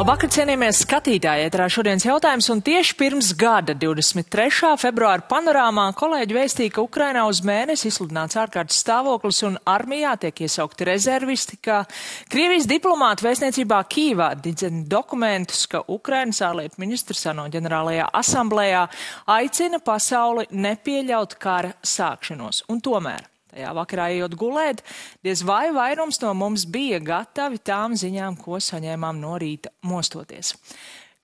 Labvakar, cienījamies skatītāji, ēterā šodienas jautājums, un tieši pirms gada, 23. februāra panorāmā, kolēģi vēstīja, ka Ukrainā uz mēnesi izsludināts ārkārtas stāvoklis un armijā tiek iesaukti rezervisti, ka Krievijas diplomāti vēstniecībā Kīvā didzina dokumentus, ka Ukrainas ārlietu ministrs ANO ģenerālajā asamblējā aicina pasauli nepieļaut kara sākšanos. Un tomēr tajā vakarā ejot gulēt, diez vai vairums no mums bija gatavi tām ziņām, ko saņēmām no rīta mostoties.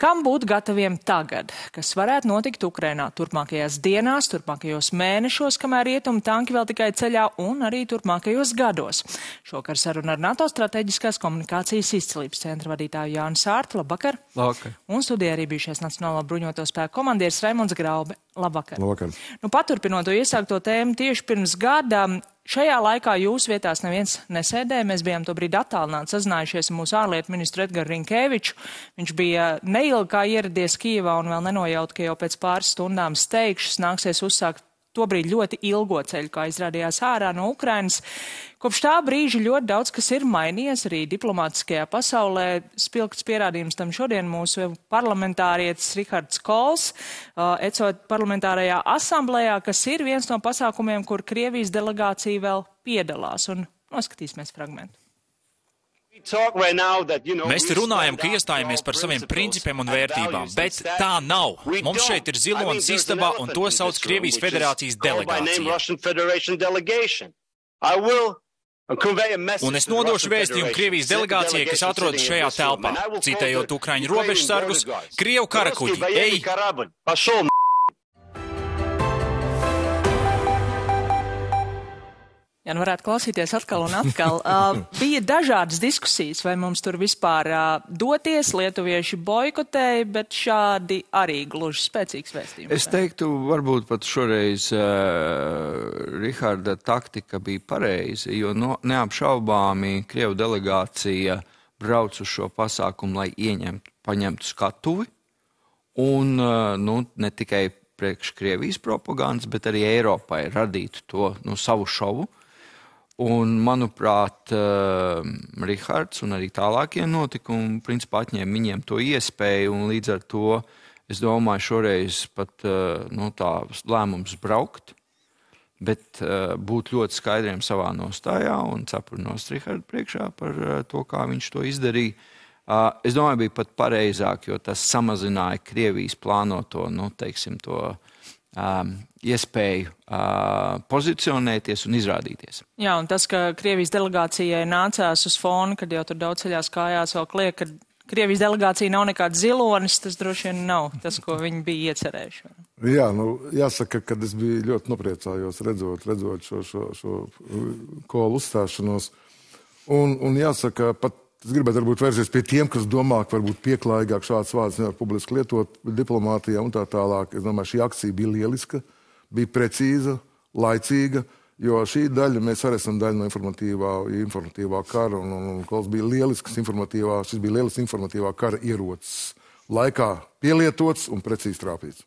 Kam būt gataviem tagad, kas varētu notikt Ukrainā turpmākajās dienās, turpmākajos mēnešos, kamēr rietumi tanki vēl tikai ceļā, un arī turpmākajos gados? Šokar saruna ar NATO strateģiskās komunikācijas izcilības centra vadītāju Jānu Sārtu. Labvakar! Labvakar! Un studijā arī bijušais Nacionālā bruņoto spēku komandieris Raimonds Graube. Labvakar! Labvakar! Paturpinot to iesākto tēmu tieši pirms gada, šajā laikā jūsu vietās neviens nesēdēja. Mēs bijām tobrīd attālināti sazinājušies ar mūsu ārlietu ministru Edgaru Rinkēviču. Viņš bija neilgi kā ieradies Kijevā un vēl nenojaut, ka jau pēc pāris stundām steigšus nāksies uzsākt tobrīd ļoti ilgo ceļu, kā izrādījās ārā no Ukrainas. Kopš tā brīža ļoti daudz, kas ir mainījies arī diplomātiskajā pasaulē. Spilgts pierādījums tam šodien mūsu parlamentārietis Rihards Kols, ECO parlamentārajā asamblējā, kas ir viens no pasākumiem, kur Krievijas delegācija vēl piedalās. Un noskatīsimies fragmentu. Mēs te runājam, ka iestājamies par saviem principiem un vērtībām, bet tā nav. Mums šeit ir zilonis istabā, un to sauc Krievijas Federācijas delegācija. Un es nodošu vēstījumu Krievijas delegācijai, kas atrodas šajā telpā. Citējot Ukraiņu robežsargus, Krievu karakuģi, ej! Jā, nu varētu klausīties atkal un atkal. Bija dažādas diskusijas, vai mums tur vispār doties, lietuvieši boikotēja, bet šādi arī gluži spēcīgs vēstījums. Es teiktu, varbūt pat šoreiz Riharda taktika bija pareiza, jo neapšaubāmi Krievu delegācija brauc uz šo pasākumu, lai paņemtu skatuvi, un ne tikai priekš Krievijas propagandas, bet arī Eiropai radītu to savu šovu. Un, manuprāt, Rihards un arī tālākie notikumi principā atņēma viņiem to iespēju, un līdz ar to, es domāju, šoreiz pat tā lēmums braukt, bet būt ļoti skaidriem savā nostājā un cepurnost Rihardu priekšā par to, kā viņš to izdarīja. Es domāju, bija pat pareizāk, jo tas samazināja Krievijas plānoto, iespēju pozicionēties un izrādīties. Jā, un tas, ka Krievijas delegācijai nācās uz fonu, kad jau tur daudz ceļās kājās vēl kliek, ka Krievijas delegācija nav nekāds zilonis, tas droši vien nav tas, ko viņi bija iecerējuši. Jā, jāsaka, ka es biju ļoti nopriecājos redzot šo Kolu uzstāšanos. Un jāsaka, pat es gribētu varbūt vērsties pie tiem, kas domā, ka varbūt pieklājīgāk šāds vārds nevar publiski lietot diplomātijā un tā tālāk. Es domāju, šī akcija bija lieliska, bija precīza, laicīga, jo šī daļa, mēs arī esam daļa no informatīvā kara, un Kols bija šis bija lielisks informatīvā kara ierocis. Laikā pielietots un precīzi trāpīts.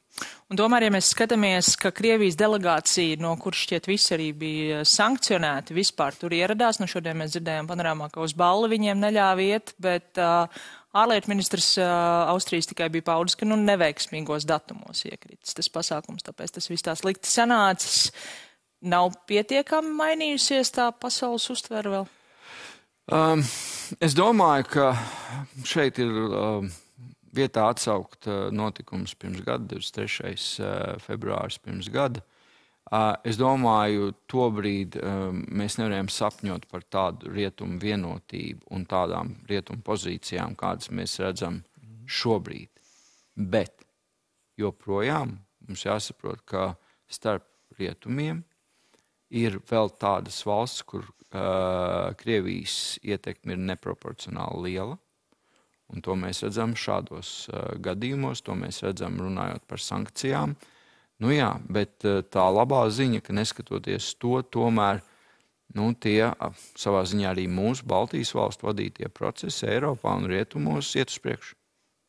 Un tomēr, ja mēs skatāmies, ka Krievijas delegācija, no kuras šķiet visi arī bija sankcionēti, vispār tur ieradās, šodien mēs dzirdējām panorāmā, ka uz balli viņiem neļāva iet, bet ārlietu ministrs Austrijas tikai bija paudis, ka neveiksmīgos datumos iekritis tas pasākums, tāpēc tas viss tā slikti sanācis. Nav pietiekami mainījusies tā pasaules uztvere vēl? Es domāju, ka šeit ir vietā atsaukt notikums pirms gada, 23. februāris pirms gada. Es domāju, tobrīd mēs nevarējām sapņot par tādu rietumu vienotību un tādām rietumu pozīcijām, kādas mēs redzam šobrīd. Bet joprojām mums jāsaprot, ka starp rietumiem ir vēl tādas valsts, kur Krievijas ietekme ir neproporcionāli liela. Un to mēs redzam šādos gadījumos, to mēs redzam runājot par sankcijām. Bet tā labā ziņa, ka neskatoties to, tomēr tie savā ziņā arī mūsu Baltijas valstu vadītie procesi Eiropā un rietumos iet uz priekšu.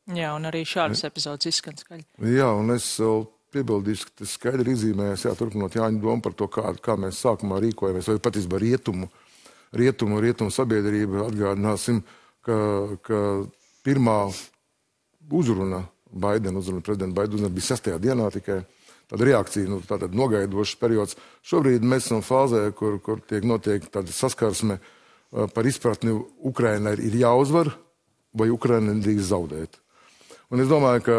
Jā, un arī šādas epizodes izskan skaļi. Jā, un es vēl piebildīšu, ka tas skaidri izzīmējas, turpinot Jāņa domu par to, kā mēs sākumā rīkojamies, vai patiesībā rietumu sabiedrība, atgādināsim, ka pirmā uzruna Baidena, prezidenta Baidena uzruna bija 6. dienā tikai. Tāda reakcija, tātad nogaidošs periods. Šobrīd mēs esam fāzē, kur notiek tāda saskarsme par izpratni Ukrainai ir jāuzvar vai Ukraina nedrīkst zaudēt. Un es domāju, ka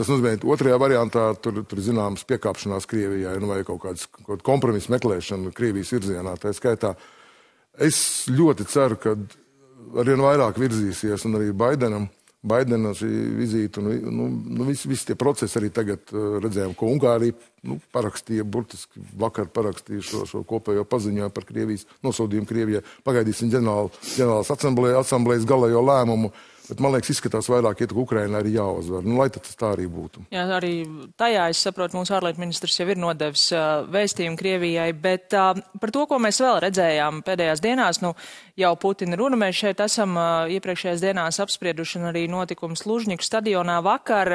tas nozīmē, otrajā variantā tur zināmas piekāpšanās Krievijai, vai kaut kāda kompromisa meklēšana Krievijas virzienā. Tā skaitā es ļoti ceru, ka arvien vairāk virzīsies un arī Baidena šī vizīte, visi tie procesi arī tagad redzējām, ko Ungārija parakstīja, burtiski vakar parakstīja šo kopējo paziņojumu par Krievijas nosodījumu Krievijai. Pagaidīsim ģenerālas asamblējas galējo lēmumu, bet man liekas, izskatās vairāk, ka Ukrainai arī jāuzvar. Lai tas tā arī būtu. Jā, arī tajā, es saprotu, mūsu ārlietu ministrs jau ir nodevis vēstījumu Krievijai, bet par to, ko mēs vēl redzējām pēdējās dienās, jau Putina runa, mēs šeit esam iepriekšējās dienās apsprieduši un arī notikums Lužņiku stadionā vakar.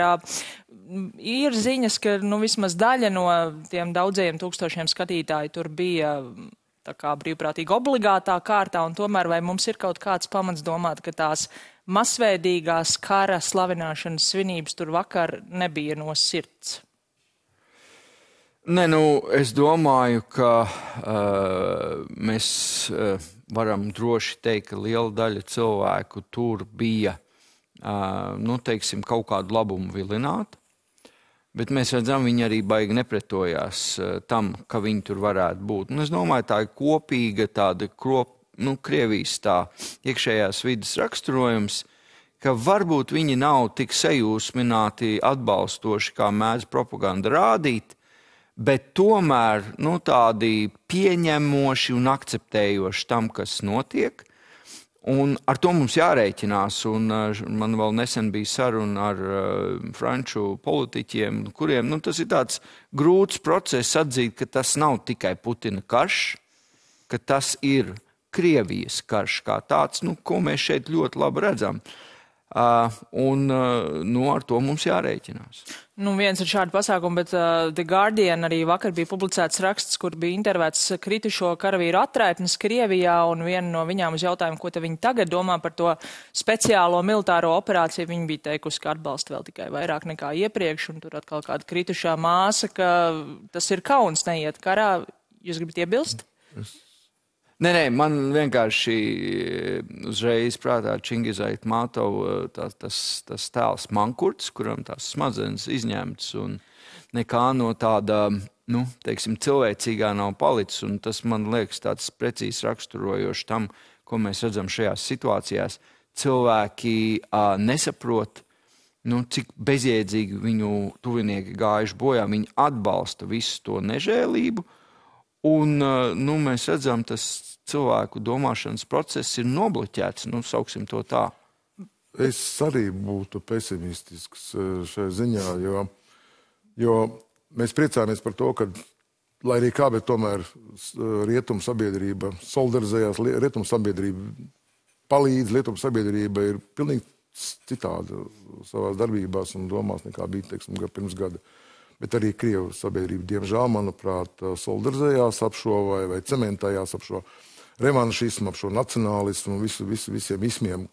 Ir ziņas, ka vismaz daļa no tiem daudzajiem tūkstošiem skatītāji tur bija tā kā brīvprātīgi obligātā kārtā, un tomēr vai mums ir kaut kāds pamats domāt, ka tās masveidīgās kara slavināšanas svinības tur vakar nebija no sirds? Nē, es domāju, ka mēs varam droši teikt, ka liela daļa cilvēku tur bija, teiksim, kaut kādu labumu vilināti. Bet mēs redzam, viņi arī baigi nepretojās tam, ka viņi tur varētu būt. Un es domāju, tā ir kopīga tāda Krievijas tā iekšējās vidas raksturojums, ka varbūt viņi nav tik sajūsmināti atbalstoši, kā mēdz propaganda rādīt, bet tomēr tādi pieņemoši un akceptējoši tam, kas notiek. Un ar to mums jārēķinās, un man vēl nesen bija saruna ar franču politiķiem, kuriem tas ir tāds grūts process atzīt, ka tas nav tikai Putina karš, ka tas ir Krievijas karš kā tāds, ko mēs šeit ļoti labi redzam. Un ar to mums jārēķinās. Viens ir šādi pasākumi, bet The Guardian arī vakar bija publicēts raksts, kur bija intervēts kritušo karavīru atraitnes Krievijā, un viena no viņām uz jautājumu, ko viņi tagad domā par to speciālo militāro operāciju, viņi bija teikusi, ka atbalsta vēl tikai vairāk nekā iepriekš, un tur atkal kāda kritušā māsa, ka tas ir kauns neiet karā. Jūs gribat iebilst? Nē, man vienkārši uzreiz prātā Čingiz Aitmatova tas tēls Mankurts, kuram tās smadzenes izņemts un nekā no tāda, teiksim, cilvēcīgā nav palicis. Un tas man liekas tāds precīzi raksturojoši tam, ko mēs redzam šajās situācijās. Cilvēki nesaprot, cik bezjēdzīgi viņu tuvinieki gājuši bojā. Viņi atbalsta visu to nežēlību. Un mēs redzam, tas cilvēku domāšanas process ir nobloķēts, sauksim to tā. Es arī būtu pesimistisks šai ziņā, jo mēs priecājamies par to, ka, lai arī kā, bet tomēr rietumu sabiedrība solidarizējās, rietumu sabiedrība palīdz, rietumu sabiedrība ir pilnīgi citāda savās darbībās un domās nekā bija, teiksim, pirms gada. Bet arī Krievu sabiedrība, diemžēl, manuprāt, solidarizējās ap šo vai cementējās ap šo revanšismu, ap šo nacionālismu un visiem ismiem,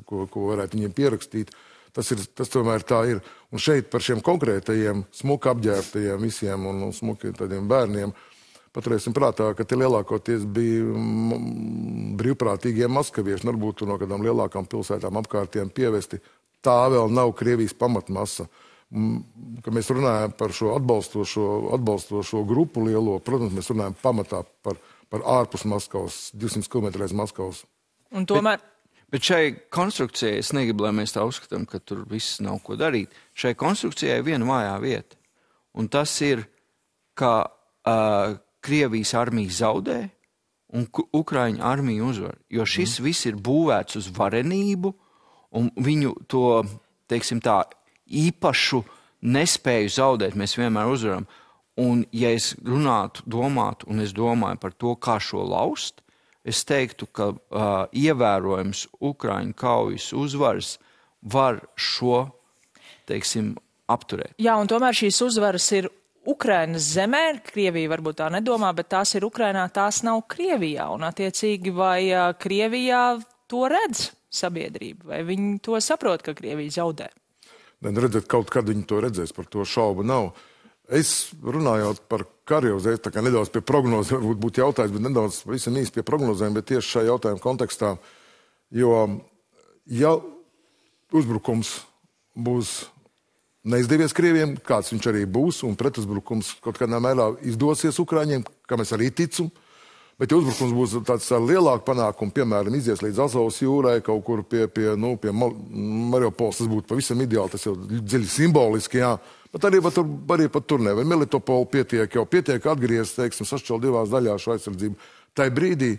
ko varētu viņiem pierakstīt. Tas tomēr tā ir. Un šeit par šiem konkrētajiem, smuki apģērbtajiem visiem un smuki tādiem bērniem, paturēsim prātā, ka tie lielākoties bija brīvprātīgie maskavieši, varbūt no kādām lielākām pilsētām apkārtiem pievesti. Tā vēl nav Krievijas pamatmasa. Kad mēs runājam par šo atbalstošo grupu lielo, protams, mēs runājam pamatā par ārpus Maskavas, 200 km aiz Maskavas. Un tomēr... Bet šai konstrukcijai, es negribu, lai mēs tā uzskatām, ka tur viss nav ko darīt. Šai konstrukcijai ir viena vājā vieta. Un tas ir, ka Krievijas armija zaudē un Ukraiņu armija uzvar. Jo šis viss ir būvēts uz varenību un viņu to, teiksim tā, īpašu nespēju zaudēt, mēs vienmēr uzvaram. Un ja es domātu, un es domāju par to, kā šo laust, es teiktu, ka ievērojams Ukraiņu kaujas uzvaras var šo, teiksim, apturēt. Jā, un tomēr šīs uzvaras ir Ukrainas zemē, Krievija varbūt tā nedomā, bet tās ir Ukrainā, tās nav Krievijā. Un attiecīgi, vai Krievijā to redz sabiedrība, vai viņi to saprot, ka Krievija zaudē? redzēt, kaut kad viņi to redzēs, par to šaubu nav. Es runājot par karu, tā kā nedaudz pie prognozēm, varbūt būtu jautājums, bet nedaudz visam īsti pie prognozēm, bet tieši šajā jautājuma kontekstā, jo ja uzbrukums būs neizdevies Krieviem, kāds viņš arī būs, un pretuzbrukums kaut kādā mērā izdosies Ukraiņiem, kam es arī ticu, bet ja uzbrukums būs tāds ar lielāku panākumu, piemēram, izies līdz Azovas jūrai, kaut kur pie Mariupols, tas būtu pavisam ideāli, tas jau dziļi simboliski, jā. Bet arī pat tur nevar. Melitopolu pietiek atgriezt, teiksim, sašķelt divās daļās šo aizsardzību. Tai brīdī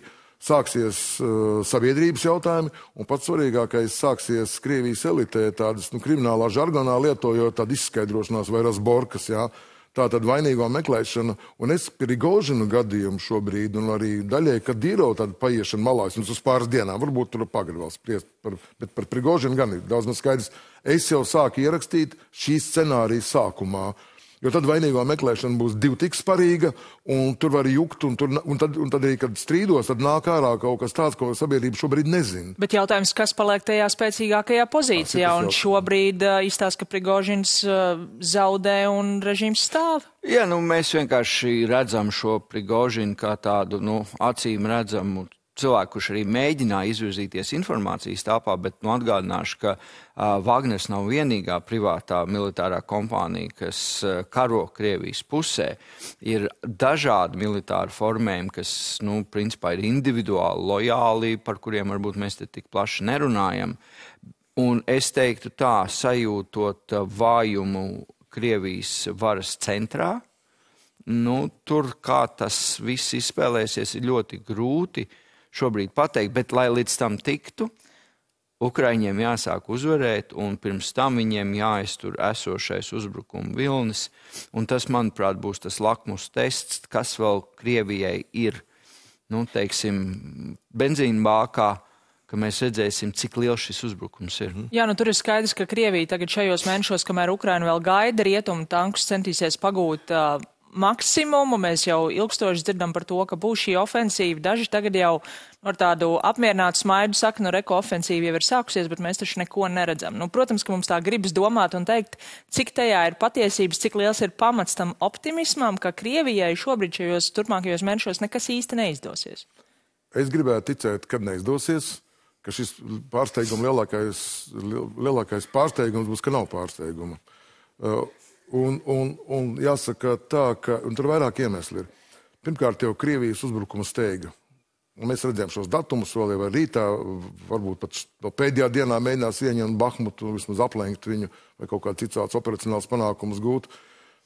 sāksies sabiedrības jautājumi, un pats svarīgākais sāksies Krievijas elitē tādas kriminālā žargonā lietojot tādu izskaidrošanās vai razborkas, jā. Tā tad vainīgo meklēšana, un es Prigožinu gadījumu šobrīd, un arī daļai Kadīrovu tādu paiešanu malā, es uz pāris dienām, varbūt tur pagad vēl spriest, bet par Prigožinu gan ir daudz maz skaidrs. Es jau sāku ierakstīt šī scenārija sākumā, jo tad vainīgo meklēšana būs divi tik sparīga, un tur var jukt, un tad arī, kad strīdos, tad nāk ārā kaut kas tāds, ko sabiedrība šobrīd nezina. Bet jautājums, kas paliek tajā spēcīgākajā pozīcijā, un šobrīd izstāsta, ka Prigožins zaudē un režīms stāv? Jā, mēs vienkārši redzam šo Prigožinu kā tādu, acīm redzamu cilvēku, kurš arī mēģināja izvirzīties informācijas tāpā, bet atgādināšu, ka Wagners nav vienīgā privātā militārā kompānija, kas karo Krievijas pusē. Ir dažādi militāri formējumi, kas, principā ir individuāli, lojāli, par kuriem varbūt mēs te tik plaši nerunājam. Un es teiktu tā, sajūtot vājumu Krievijas varas centrā, tur kā tas viss izspēlēsies, ir ļoti grūti šobrīd pateikt, bet lai līdz tam tiktu, Ukraiņiem jāsāk uzvarēt, un pirms tam viņiem jāiztur esošais uzbrukuma vilnis, un tas, manuprāt, būs tas lakmus tests, kas vēl Krievijai ir, benzīna bākā, ka mēs redzēsim, cik liels šis uzbrukums ir. Jā, tur ir skaidrs, ka Krievija tagad šajos mēnešos, kamēr Ukraina vēl gaida, rietumu tankus centīsies pagūt maksimumu. Mēs jau ilgstoši dzirdam par to, ka būs šī ofensīva. Daži tagad jau ar tādu apmierinātu smaidu saka, reko ofensīva jau ir sākusies, bet mēs taču neko neredzam. Protams, ka mums tā gribas domāt un teikt, cik tajā ir patiesības, cik liels ir pamats tam optimismam, ka Krievijai šobrīd šajos turpmākajos mēnešos nekas īsti neizdosies. Es gribētu ticēt, kad neizdosies, ka šis pārsteiguma lielākais pārsteigums būs, ka nav pārsteiguma. Un jāsaka tā, ka tur vairāk iemesli ir. Pirmkārt, jau Krievijas uzbrukuma steiga. Un mēs redzējām šos datumus vēl jau rītā, varbūt pat pēdējā dienā mēģinās ieņemt Bahmutu, vismaz aplenkt viņu vai kaut kā cits operacionāls panākumus gūt.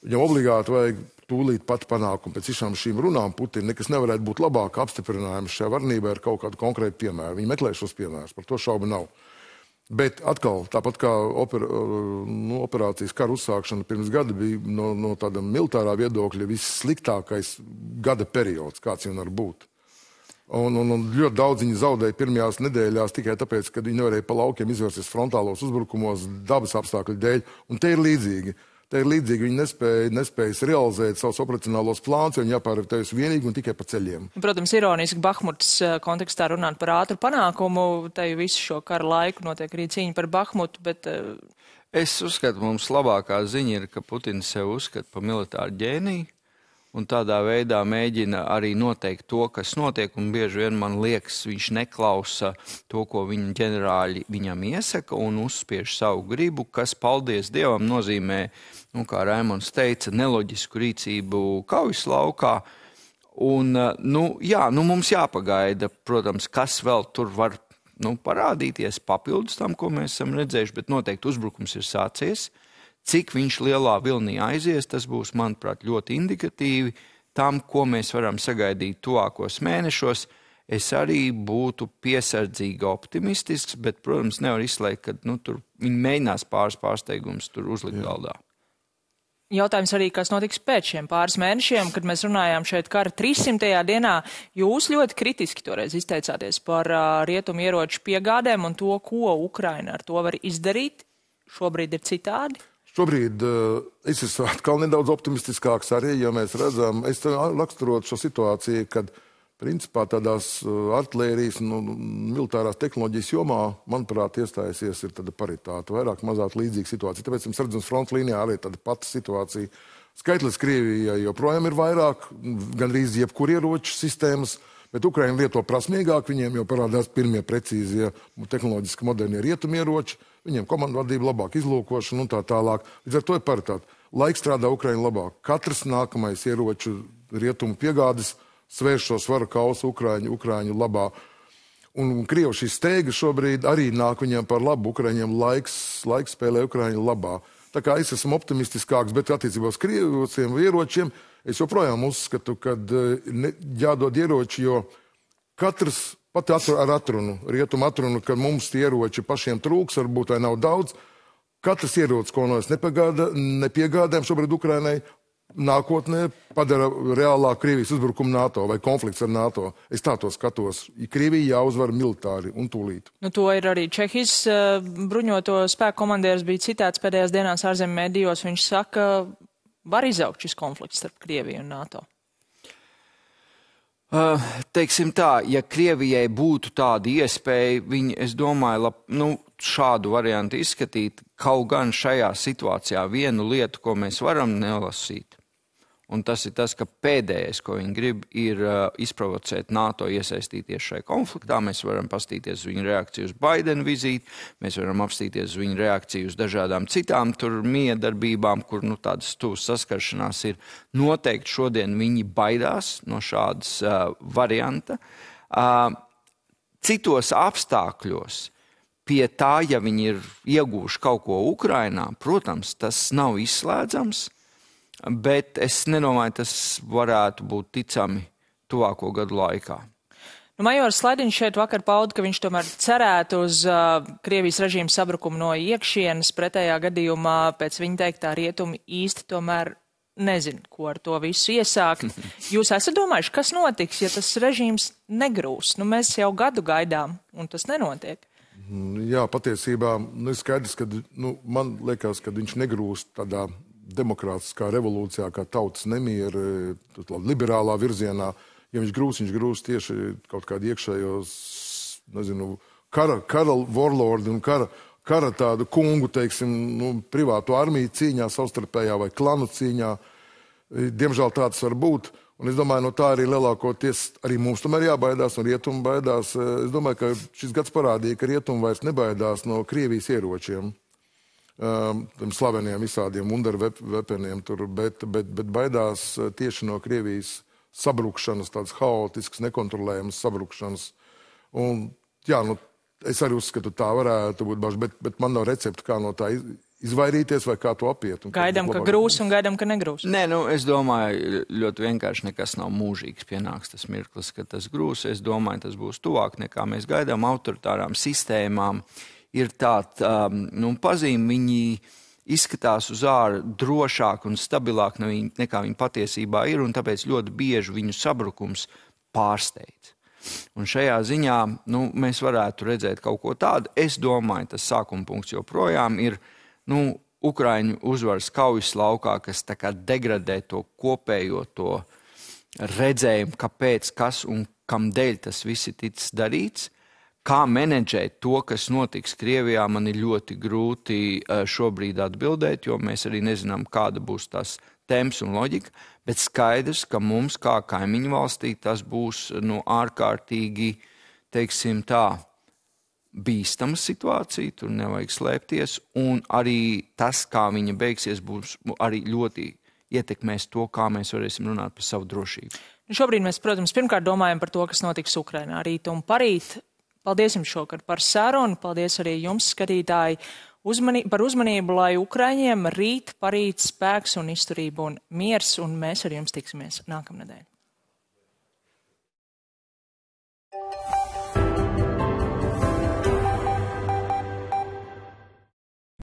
Viņam obligāti vajag tūlīt pat panākumu. Pēc šīm runām Putina nekas nevarētu būt labāk apstiprinājums šajā varnībā ar kaut kādu konkrētu piemēru. Viņi meklē šos piemērus, par to šaubu nav. Bet atkal, tāpat kā operācijas kara uzsākšana pirms gada bija no tāda militārā viedokļa vissliktākais gada periods, kāds jau var būt. Un ļoti daudz viņi zaudēja pirmajās nedēļās tikai tāpēc, ka viņi nevarēja pa laukiem izvērsties frontālos uzbrukumos dabas apstākļu dēļ. Un te ir līdzīgi. Viņi nespējas realizēt savus operacionālos plānus, jo viņi jāpārvietojas vienīgi un tikai pa ceļiem. Protams, ironiski Bahmutas kontekstā runāt par ātru panākumu, te visu šo kara laiku notiek arī cīņa par Bahmutu, bet... Es uzskatu, mums labākā ziņa ir, ka Putins sev uzskata par militāru ģēniju, un tādā veidā mēģina arī noteikt to, kas notiek, un bieži vien man liekas, viņš neklausa to, ko viņa ģenerāļi viņam iesaka, un uzspiež savu gribu, kas, paldies Dievam, nozīmē, kā Raimons teica, neloģisku rīcību kaujas laukā. Un, mums jāpagaida, protams, kas vēl tur var parādīties papildus tam, ko mēs esam redzējuši, bet noteikti uzbrukums ir sācies. Cik viņš lielā vilnī aizies, tas būs, manuprāt, ļoti indikatīvi tam, ko mēs varam sagaidīt tuvākos mēnešos. Es arī būtu piesardzīgi optimistisks, bet, protams, nevar izslēgt, ka tur viņi mēģinās pārsteigumus tur uzlikt galdā. Jautājums arī, kas notiks pēc šiem pāris mēnešiem, kad mēs runājām šeit kara 300. dienā. Jūs ļoti kritiski toreiz izteicāties par rietumu ieroču piegādēm un to, ko Ukraina ar to var izdarīt. Šobrīd ir citādi? Šobrīd es esmu atkal nedaudz optimistiskāks arī, jo mēs redzam, es raksturot šo situāciju, kad principā tādās artilērijas un militārās tehnoloģijas jomā, manuprāt, iestājusies ir tāda paritāte, vairāk mazāk līdzīga situācija. Tāpēc mums redzams fronts līnijā arī tāda pati situācija. Skaitlis Krievijai joprojām ir vairāk, gandrīz jebkur ieroču sistēmas, bet Ukraina lieto prasmīgāk, viņiem jau parādās pirmie precīzie tehnoloģiski modernie rietumieroči, viņiem komandvadība labāk izlūkošana un tā tālāk. Līdz ar to ir paritāte. Laiks strādā Ukraina labāk. Katrs nākamais ieroču rietumu piegādes svērš šo svaru kausu Ukraiņu labā. Un Krievu šī steiga šobrīd arī nāk viņiem par labu. Ukraiņiem laiks spēlē Ukraiņu labā. Tā kā es esmu optimistiskāks, bet attiecībā uz krieviem ieročiem es joprojām uzskatu, ka jādod ieroči, jo katrs pat ar atrunu, rietumu atrunu, ka mums tie ieroči pašiem trūks, varbūt vai nav daudz, katrs ierocis, ko no es nepiegādājam šobrīd Ukrainai, nākotnē padara reālāk Krievijas uzbrukumu NATO vai konflikts ar NATO. Es tā to skatos. Krievija jāuzvar militāri un tūlīt. Nu, to ir arī Čehijas bruņoto spēku komandieris bija citāts pēdējās dienās ārzemju medijos. Viņš saka, var izaugt šis konflikts starp Krieviju un NATO. Teiksim tā, ja Krievijai būtu tāda iespēja, viņi, es domāju, šādu variantu izskatīt, kaut gan šajā situācijā vienu lietu, ko mēs varam nelasīt. Un tas ir tas, ka pēdējais, ko viņi grib, ir izprovocēt NATO iesaistīties šajā konfliktā. Mēs varam pastīties uz viņu reakciju uz Baidena vizīti, mēs varam apstīties uz viņu reakciju uz dažādām citām miedarbībām, kur tādas tuvas saskaršanās ir. Noteikti šodien viņi baidās no šādas varianta. Citos apstākļos pie tā, ja viņi ir ieguvuši kaut ko Ukrainā, protams, tas nav izslēdzams. Bet es nedomāju, tas varētu būt ticami tuvāko gadu laikā. Majors Slaidiņš šeit vakar pauda, ka viņš tomēr cerētu uz Krievijas režīmu sabrukumu no iekšienes. Pretējā gadījumā pēc viņa teiktā rietumi īsti tomēr nezin, ko ar to visu iesākt. Jūs esat domājuši, kas notiks, ja tas režīms negrūs? Mēs jau gadu gaidām, un tas nenotiek. Jā, patiesībā ir skaidrs, ka man liekas, ka viņš negrūst tādā demokrātiskā revolūcijā, kā tautas nemiera, liberālā virzienā. Ja viņš grūs tieši kaut kādu iekšējos, kara warlordi un kara tādu kungu, teiksim, privātu armiju cīņā, savstarpējā vai klanu cīņā. Diemžēl tāds var būt. Un es domāju, tā arī lielākoties arī mums tomēr jābaidās un rietumi baidās. Es domāju, ka šis gads parādīja, ka rietumi vairs nebaidās no Krievijas ieročiem. Slaveniem visādiem wunderweaponiem tur, bet baidās tieši no Krievijas sabrukšanas, tādas haotiskas, nekontrolējamas sabrukšanas. Un, jā, es arī uzskatu, tā varētu būt, bet man nav recepta, kā no tā izvairīties vai kā to apiet. Gaidām, ka grūs un gaidām, ka negrūs. Nē, es domāju, ļoti vienkārši nekas nav mūžīgs. Pienāks tas mirklis, ka tas grūs. Es domāju, tas būs tuvāk nekā mēs gaidām autoritārām sistēmām. Ir tāda pazīme, viņi izskatās uz āru drošāk un stabilāk nekā viņi patiesībā ir, un tāpēc ļoti bieži viņu sabrukums pārsteidz. Un šajā ziņā mēs varētu redzēt kaut ko tādu. Es domāju, tas sākuma punkts joprojām ir Ukraiņu uzvaras kaujas laukā, kas tā kā degradē to kopējo to redzējumu, kāpēc, kas un kam dēļ tas viss ir ticis darīts. Kā menedžēt to, kas notiks Krievijā, man ir ļoti grūti šobrīd atbildēt, jo mēs arī nezinām, kāda būs tās temps un loģika, bet skaidrs, ka mums kā kaimiņu valstī tas būs ārkārtīgi, teiksim tā, bīstama situācija, tur nevajag slēpties, un arī tas, kā viņa beigsies, būs arī ļoti ietekmēs to, kā mēs varēsim runāt par savu drošību. Šobrīd mēs, protams, pirmkārt domājam par to, kas notiks Ukrainā rīt un parīt. Paldies jums šokar par sarunu, paldies arī jums, skatītāji, par uzmanību, lai Ukraiņiem rīt, parīt spēks un izturība un miers, un mēs ar jums tiksimies nākamnedēļ.